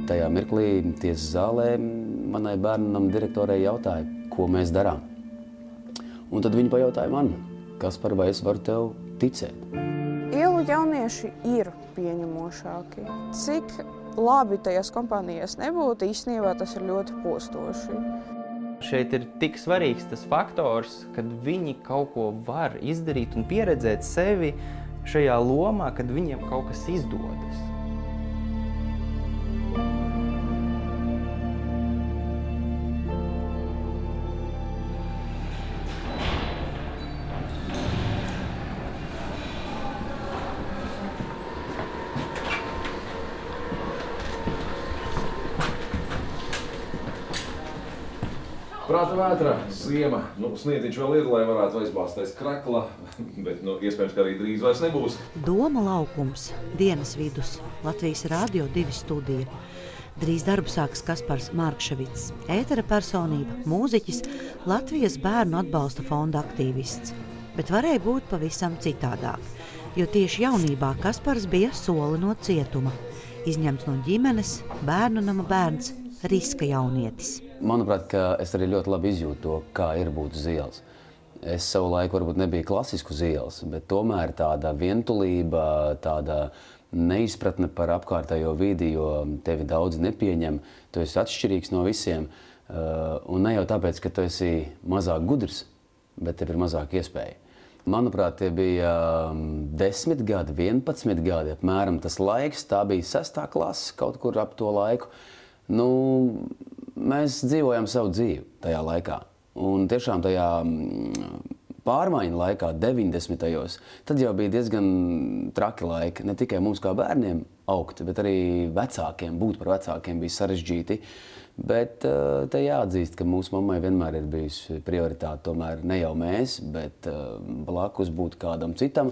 tajā mirklī tiesas zālē manai bērnam direktorei jautāja, ko mēs darām. Un tad viņi pajautāja man, Kaspar, vai es varu tev ticēt? Ielu jaunieši ir pieņemošāki. Cik labi tajās kompānijās nebūtu, īstenībā tas ir ļoti postoši. Šeit ir tik svarīgs tas faktors, kad viņi kaut ko var izdarīt un pieredzēt sevi šajā lomā, kad viņiem kaut kas izdodas. Prāta vētra, ziema, sniedziņš vēl ir, lai varētu aizbāztais krakla, bet iespējams, ka arī drīz vairs nebūs. Doma laukums, dienas vidus, Latvijas Radio 2 studija. Drīz darbu sāks Kaspars Markševits, ētera personība, mūziķis, Latvijas bērnu atbalsta fonda aktīvists. Bet varēja būt pavisam citādāk, jo tieši jaunībā Kaspars bija soli no cietuma. Izņemts no ģimenes, bērnu nama bērns, riska jaunietis. Manuprāt, ka es arī ļoti labi izjūtu to, kā ir būt uz ielas. Es savu laiku varbūt nebiju klasisku uz ielas, bet tomēr tāda vientulība, tāda neizpratne par apkārtējo vidi, jo tevi daudz nepieņem, tu esi atšķirīgs no visiem. Un ne jau tāpēc, ka tu esi mazāk gudrs, bet tev ir mazāk iespēja. Manuprāt, tie bija 10 gadi, 11 gadi, apmēram tas laiks, tā bija 6. klase, kaut kur ap to laiku. Mēs dzīvojam savu dzīvi tajā laikā. Un tiešām tajā pārmaiņu laikā, 90. tad jau bija diezgan traki laiki. Ne tikai mums kā bērniem augt, bet arī vecākiem, būt par vecākiem bija sarežģīti. Bet te jāatzīst, ka mūsu mammai vienmēr ir bijusi prioritāte tomēr ne jau mēs, bet blakus būt kādam citam.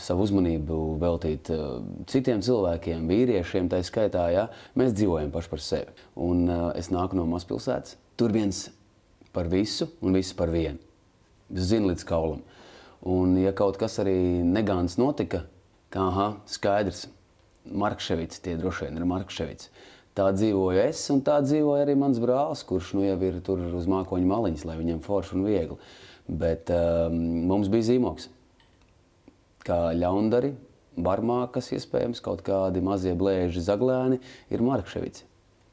Savu uzmanību veltīt citiem cilvēkiem, vīriešiem, tā skaitā, ja? Mēs dzīvojam paši par sevi. Un es nāku no mazpilsētas. Tur viens par visu un visi par vienu. Zinu līdz kaulam. Un ja kaut kas arī negāns notika, kā skaidrs, Markševits, tie droši vien ir Markševits. Tā dzīvoju es un tā dzīvoja arī mans brālis, kurš jau ir tur uz mākoņu maliņas, lai viņam forši un viegli. Bet mums bija zīmoks. Kā ļaundari, barmākas iespējams, kaut kādi mazie blēži zaglēni ir Markševits.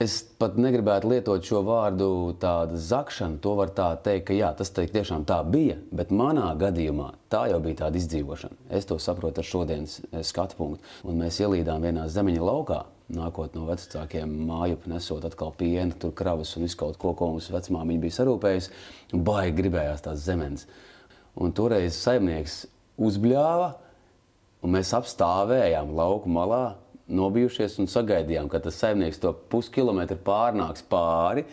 Es pat negribētu lietot šo vārdu tāda zakšana, to var tā teikt, ka jā, tas tiešām tā bija, bet manā gadījumā tā jau bija tāda izdzīvošana. Es to saprotu ar šodienas skatu punktu. Un mēs ielīdām vienā zemeņa laukā, nākot no vecākiem mājup, nesot atkal pienu, tur kravas un visu kaut ko mums vecmāmiņa bija sarūpējusi, un baigi gribējās tās zemenes. Un toreiz saimnieks uzbļāva, un mēs apstāvējām lauku malā, nobijušies un sagaidījām, ka tas saimnieks to puskilometru pārnāks pāri,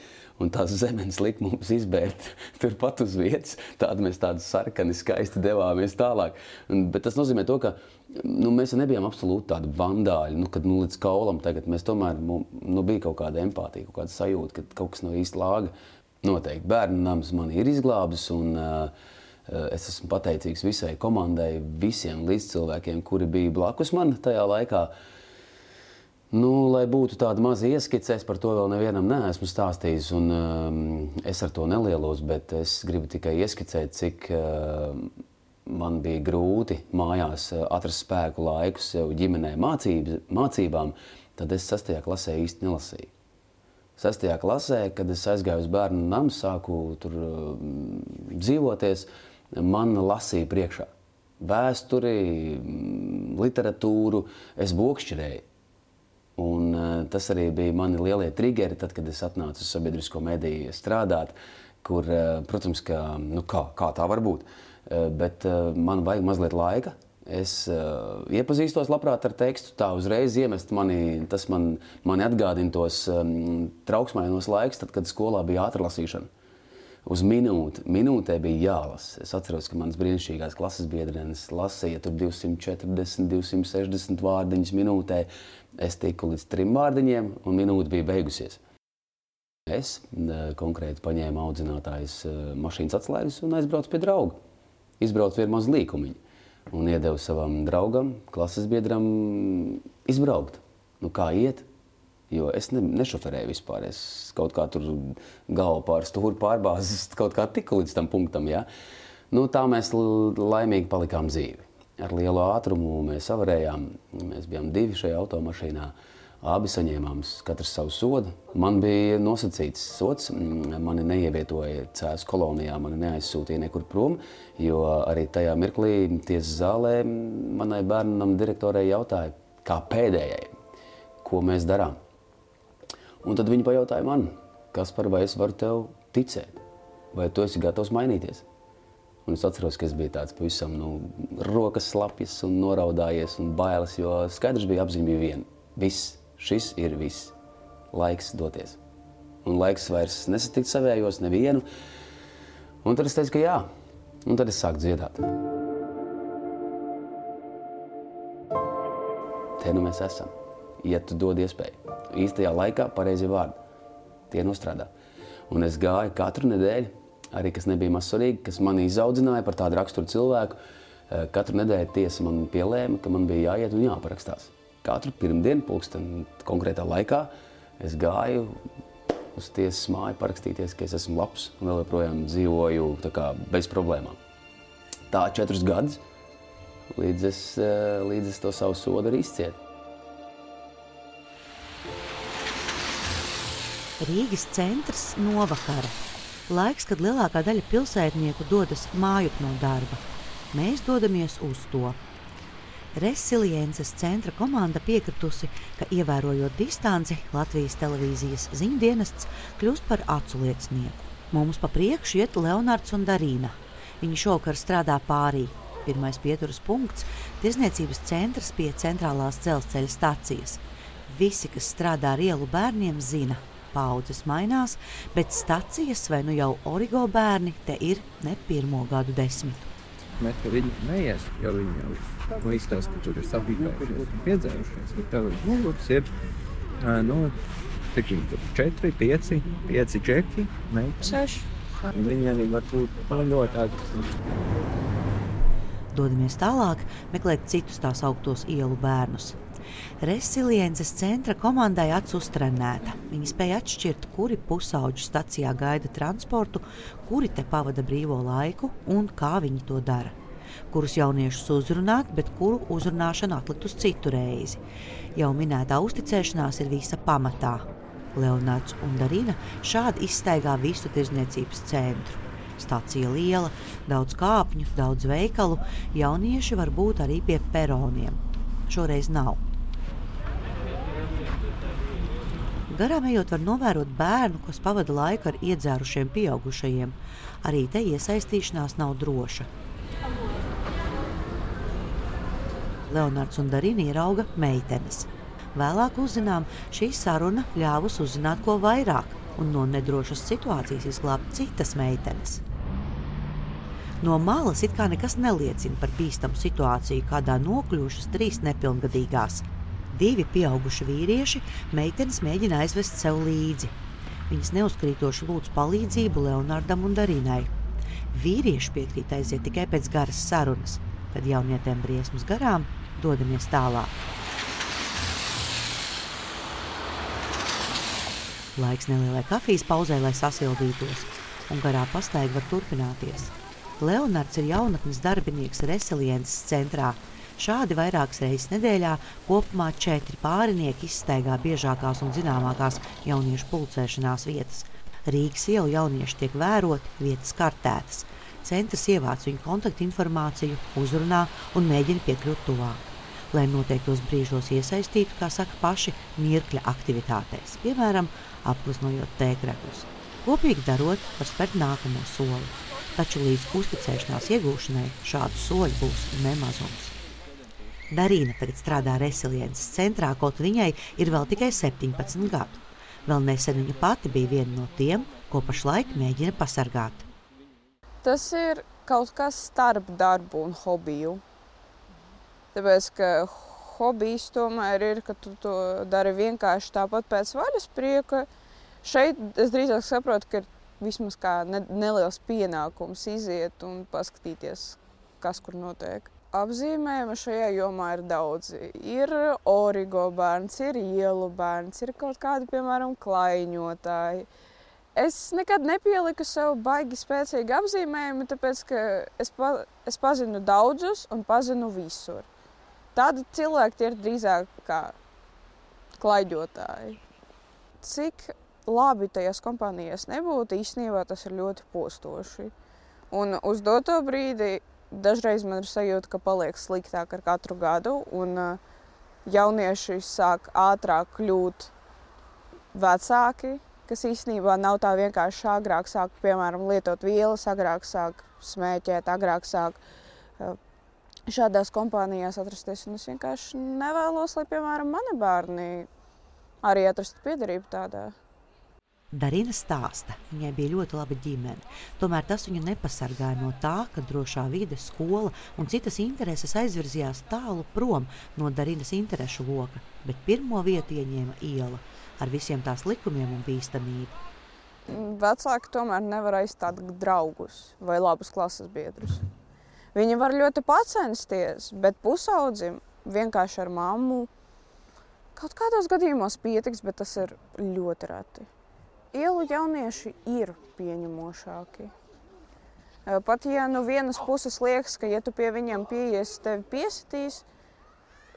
un tās zemenes lika mums izbērt turpat uz vietas. Tādi mēs tādi sarkani skaisti devāmies tālāk. Bet tas nozīmē to, ka mēs nebijām absolūti tādi vandāļi, kad līdz kaulam tagad mēs tomēr bija kaut kāda empātija, kaut kāda sajūta, ka kaut kas nav īsti lāga. Noteikti bērnu nams mani ir izglābis, un es esmu pateicīgs visai komandai, visiem līdzcilvēkiem, kuri bija blakus man tajā laikā. Lai būtu tāda maza ieskice, es par to vēl nevienam neesmu stāstījis, un es ar to nelielos, bet es gribu tikai ieskicēt, cik man bija grūti mājās atrast spēku laiku sev ģimenē mācībām, tad es 6. klasē īsti nelasīju. 6. klasē, kad es aizgāju uz bērnu namu, sāku tur dzīvoties, man lasīja priekšā. Vēsturi, literatūru, es bokšķirēju. Un tas arī bija mani lielie triggeri, tad, kad es atnācu uz sabiedrisko mediju strādāt, kur, protams, kā tā var būt, bet man vajag mazliet laika. Es iepazīstos labprāt ar tekstu, tā uzreiz iemest tas mani atgādina tos trauksmainos laiks, tad, kad skolā bija ātrlasīšana. Uz minūtē bija jālasa. Es atceros, ka manas brīnišķīgās klases biedrenes lasīja tur 240, 260 vārdiņas minūtē. Es tiku līdz 3 vārdiņiem, un minūte bija beigusies. Es konkrēti paņēmu audzinātājas mašīnas atslēgas un aizbraucu pie drauga. Izbraucu vienu mazu līkumiņu un iedevu savam draugam, klases biedram izbraukt. Kā iet? Jo es nešoferēju vispār. Es kaut kā tur galvu pār stūri pārbāzes, kaut kā tiku līdz tam punktam. Ja? Nu, tā mēs laimīgi palikām dzīvi. Ar lielu ātrumu mēs avarējām. Mēs bijām 2 šajā automašīnā. Abi saņēmām katrs savu sodu. Man bija nosacīts sods. Mani neievietoja Cēsu kolonijā, mani neaizsūtīja nekur prom, jo arī tajā mirklī tiesas zālē manai bērnam direktorei jautāja, kā pēdējai, ko mēs darām. Un tad viņi pajautāja man, Kaspar, vai es varu tev ticēt, vai tu esi gatavs mainīties? Un es atceros, ka es biju tāds pavisam rokas slapjas un noraudājies un bailes, jo skaidrs bija, apziņa bija viena. Viss. Šis ir viss. Laiks doties. Un laiks vairs nesatikt savējos nevienu. Un tad es teicu, ka jā. Un tad es sāku dziedāt. Te nu mēs esam. Ja tu dod iespēju. Īstajā laikā pareizie vārdi. Tie nostrādā. Un es gāju katru nedēļu, arī kas nebija maz svarīgi, kas mani izaudzināja par tādu raksturu cilvēku. Katru nedēļu tiesa man pielēma, ka man bija jāiet un jāparakstās. Katru pirmdienu, pulksten konkrētā laikā, es gāju uz tiesas māju parakstīties, ka es esmu labs un vēl joprojām dzīvoju tā kā bez problēmām. Tā 4 gadus, līdz es to savu sodu arī izcietu. Rīgas centrs novakara. Laiks, kad lielākā daļa pilsētnieku dodas mājup no darba. Mēs dodamies uz to. Resiliences centra komanda piekritusi, ka ievērojot distanci, Latvijas televīzijas ziņdienests kļūst par aculiecinieku. Mums pa priekšu iet Leonards un Darīna. Viņi šovakar strādā pārī. Pirmais pieturas punkts – tirzniecības centrs pie centrālās dzelzceļa stacijas. Visi, kas strādā ar ielu bērniem, zina. Paudzes mainās, bet stacijas vai nu jau origo bērni te ir ne 1. gadu desmitu. Mēs par viņu neies, jo viņi jau izstāsta, ka tur ir sabīgājušies un piedzērušies. Tev ir muguras ir, cik viņi tur 4, 5 džeki, meitas. 6. Viņi arī var būt ļoti agresīvi. Dodamies tālāk, meklēt citus tās augtos ielu bērnus. Resiliences centra komandai acs uztrenēta. Viņi spēja atšķirt, kuri pusauģi stacijā gaida transportu, kuri te pavada brīvo laiku un kā viņi to dara. Kurus jauniešus uzrunāt, bet kuru uzrunāšanu atlikt uz citu reizi. Jau minētā uzticēšanās ir visa pamatā. Leonards un Darina šādi izstaigā visu tirzniecības centru. Stacija liela, daudz kāpņu, daudz veikalu, jaunieši var būt arī pie peroniem. Šoreiz nav. Garām ejot var novērot bērnu, kas pavada laiku ar iedzērušiem pieaugušajiem. Arī te iesaistīšanās nav droša. Leonards un Darina ierauga meitenes. Vēlāk uzzinām, šī saruna ļāvus uzzināt ko vairāk un no nedrošas situācijas izglābt citas meitenes. No malas it kā nekas neliecina par bīstamu situāciju, kādā nokļuvušas 3 nepilngadīgās. 2 pieauguši vīrieši meitenes mēģina aizvest sev līdzi. Viņas neuzkrītoši lūdz palīdzību Leonardam un Darinai. Vīrieši piekrīt aiziet tikai pēc garas sarunas, kad jaunietēm briesmas garām dodamies tālāk. Laiks nelielai kafijas pauzē, lai sasildītos, un garā pastaiga var turpināties. Leonards ir jaunatnes darbinieks Resiliences centrā. Šādi vairākas reizes nedēļā kopumā 4 pārinieki izstaigā biežākās un zināmākās jauniešu pulcēšanās vietas. Rīgas ielu jaunieši tiek vēroti, vietas kartētas. Centrs ievāc viņu kontaktinformāciju, uzrunā un mēģina piekļūt tuvāk. Lai noteiktos brīžos iesaistītu, kā saka paši, mirkļa aktivitātēs, piemēram, apgleznojot tēkreklus. Kopīgi darot, var spērt nākamo soli. Taču līdz uzticēšanās iegūšanai šādu soļu būs nemazums. Darīna tagad strādā Resiliences centrā, kaut viņai ir vēl tikai 17 gadu. Vēl nesen viņa pati bija viena no tiem, ko pašlaik mēģina pasargāt. Tas ir kaut kas starp darbu un hobiju. Tāpēc, ka hobijs tomēr ir, ka tu to dari vienkārši tāpat pēc vaļas prieka. Šeit es drīzāk saprotu, ka ir vismaz kā neliels pienākums iziet un paskatīties, kas kur notiek. apzīmējumi šajā jomā ir daudzi. Ir origo bērns, ir ielu bērns, ir kaut kādi, piemēram, klaiņotāji. Es nekad nepieliku sev baigi spēcīgi apzīmējumi, tāpēc, ka es pazinu daudzus un pazinu visur. Tādi cilvēki tie ir drīzāk kā klaiņotāji. Cik labi tajās kompānijās nebūtu, īstenībā tas ir ļoti postoši. Un uz doto brīdi dažreiz man ir sajūta, ka paliek sliktāk ar katru gadu, un jaunieši sāk ātrāk kļūt vecāki, kas īstenībā nav tā vienkārši agrāk sāk, piemēram, lietot vielas, agrāk sāk smēķēt, agrāk sāk šādās kompānijās atrasties. Un es vienkārši nevēlos, lai, piemēram, mani bērni arī atrastu piederību tādā. Darina stāsta, viņai bija ļoti laba ģimene, tomēr tas viņu nepasargāja no tā, ka drošā vide, skola un citas intereses aizvirzījās tālu prom no Darinas interešu loka, bet pirmo vietu ieņēma iela ar visiem tās likumiem un bīstamību. Vecāki tomēr nevar aizstāt draugus vai labus klases biedrus. Viņi var ļoti pacensties, bet pusaudzim vienkārši ar mammu kaut kādos gadījumos pietiks, bet tas ir ļoti reti. Ielu jaunieši ir pieņemošāki. Pat ja no vienas puses liekas, ka ja tu pie viņiem pieies, tevi piesitīs,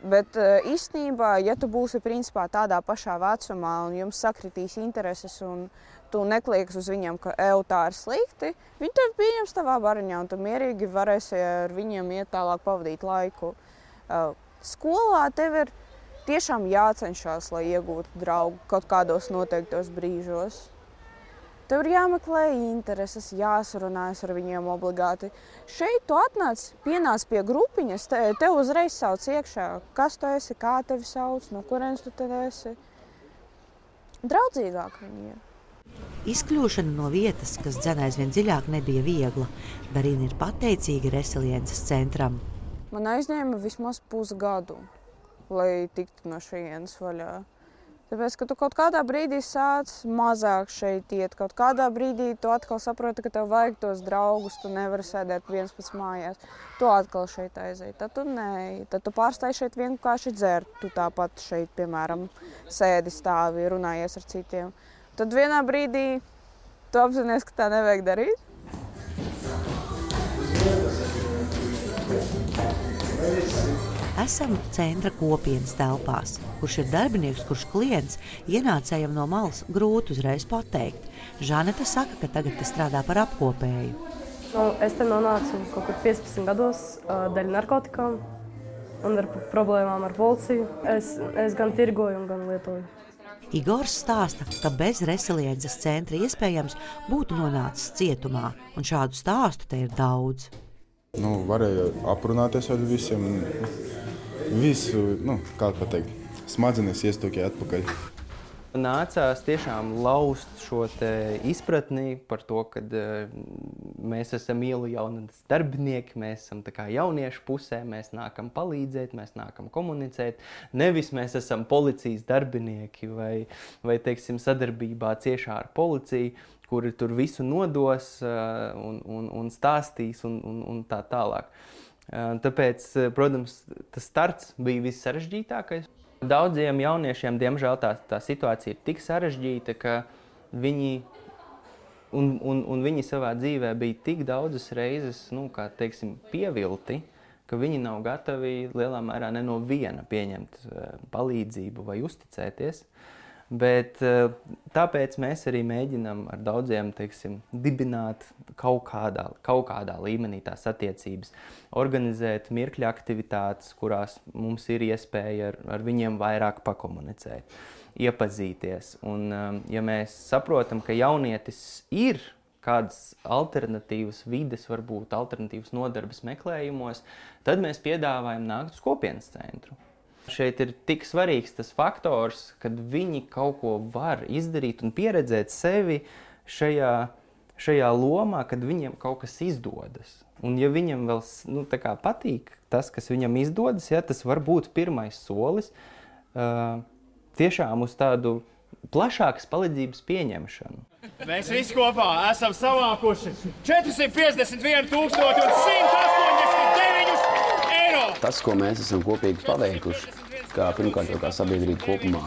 bet īstenībā, ja tu būsi principā tādā pašā vecumā un jums sakritīs intereses un tu neklieks uz viņiem, ka tā ir slikti, viņi tevi pieņems tavā bariņā un tu mierīgi varēsi ar viņiem iet tālāk pavadīt laiku. Skolā tev ir tiešām jācenšas, lai iegūtu draugu kaut kādos noteiktos brīžos. Tev ir jāmeklē intereses, jāsarunājas ar viņiem obligāti. Šeit tu pienāc pie grupiņas, tev uzreiz sauc iekšā, kas tu esi, kā tevi sauc, no kurienes tu te esi. Draudzīgāk viņi ir. Izkļūšana no vietas, kas dzen aizvien dziļāk, nebija viegla. Darina ir pateicīga Resiliences centram. Man aizņēma vismaz pusgadu, lai tiktu no šejienes vaļā. Tāpēc, ka tu kaut kādā brīdī sāc mazāk šeit iet, kaut kādā brīdī tu atkal saproti, ka tev vajag tos draugus, tu nevari sēdēt viens pats mājās. Tu atkal šeit aizej, tad tu neej, tad tu pārstāji šeit vienkārši dzert, tu tāpat šeit, piemēram, sēdi stāvi, runājies ar citiem. Tad vienā brīdī tu apzinies, ka tā nevajag darīt. Esam centra kopienas telpās, kurš ir darbinieks, kurš klients ienācējam no malas grūti uzreiz pateikt. Žaneta saka, ka tagad te strādā par apkopēju. Es te nonācu kaut kur 15 gados dēļ narkotikām un ar problēmām ar policiju. Es gan tirgoju un gan lietoju. Igors stāsta, ka bez Resiliences centra iespējams būtu nonācis cietumā, un šādu stāstu te ir daudz. Varēja aprunāties ar visiem, visu, kā pateikt, smadzenes iestūkēja atpakaļ. Nācās tiešām laust šo te izpratni par to, ka mēs esam ielu jaunas darbinieki, mēs esam tā kā jauniešu pusē, mēs nākam palīdzēt, mēs nākam komunicēt. Nevis mēs esam policijas darbinieki vai teiksim, sadarbībā ciešā ar policiju, kuri tur visu nodos un stāstīs un tā tālāk. Tāpēc, protams, tas starts bija vissarežģītākais. Daudziem jauniešiem, diemžēl, tā situācija ir tik sarežģīta, ka viņi, un viņi savā dzīvē bija tik daudzas reizes, kā teiksim, pievilti, ka viņi nav gatavi lielā mērā ne no viena pieņemt palīdzību vai uzticēties. Bet tāpēc mēs arī mēģinām ar daudziem, teiksim, dibināt kaut kādā līmenī tās attiecības, organizēt mirkļa aktivitātes, kurās mums ir iespēja ar viņiem vairāk pakomunicēt, iepazīties. Un, ja mēs saprotam, ka jaunietis ir kādas alternatīvas vides, varbūt alternatīvas nodarbes meklējumos, tad mēs piedāvājam nākt uz kopienas centru. Šeit ir tik svarīgs tas faktors, kad viņi kaut ko var izdarīt un pieredzēt sevi šajā lomā, kad viņiem kaut kas izdodas. Un ja viņam vēl patīk tas, kas viņam izdodas, tas var būt pirmais solis tiešām uz tādu plašākas palīdzības pieņemšanu. Mēs visi kopā esam savākuši 451 189 eiro. tas, ko mēs esam kopīgi paveikuši, kā pirmkārt jau kā sabiedrība kopumā,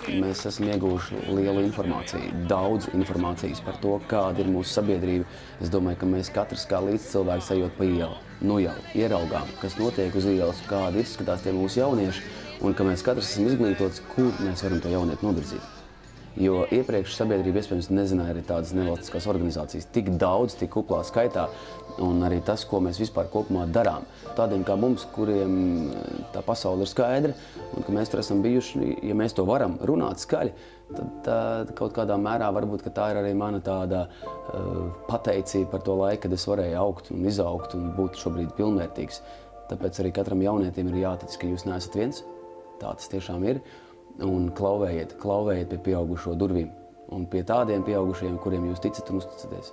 mēs esam ieguvuši lielu informāciju, daudz informācijas par to, kāda ir mūsu sabiedrība. Es domāju, ka mēs katrs kā līdzcilvēks ejot pa ielu, nu jau ieraugām, kas notiek uz ielas, kādi izskatās tie mūsu jaunieši, un ka mēs katrs esam izglītots, kur mēs varam to jaunieti novirzīt. Jo iepriekš sabiedrība iespējams nezināja arī tādas nevalstiskās organizācijas tik daudz, tik kuplā skaitā, un arī tas, ko mēs vispār kopumā darām. Tādiem kā mums, kuriem tā pasaule ir skaidra, un ka mēs tur esam bijuši, ja mēs to varam runāt skaļi, tad kaut kādā mērā varbūt, ka tā ir arī mana tāda pateicība par to laiku, kad es varēju augt un izaugt un būt šobrīd pilnvērtīgs. Tāpēc arī katram jaunietim ir jātic, ka jūs neesat viens, tā tas tiešām ir. Un klauvējiet pie pieaugušo durvīm un pie tādiem pieaugušajiem, kuriem jūs ticat un uzticaties.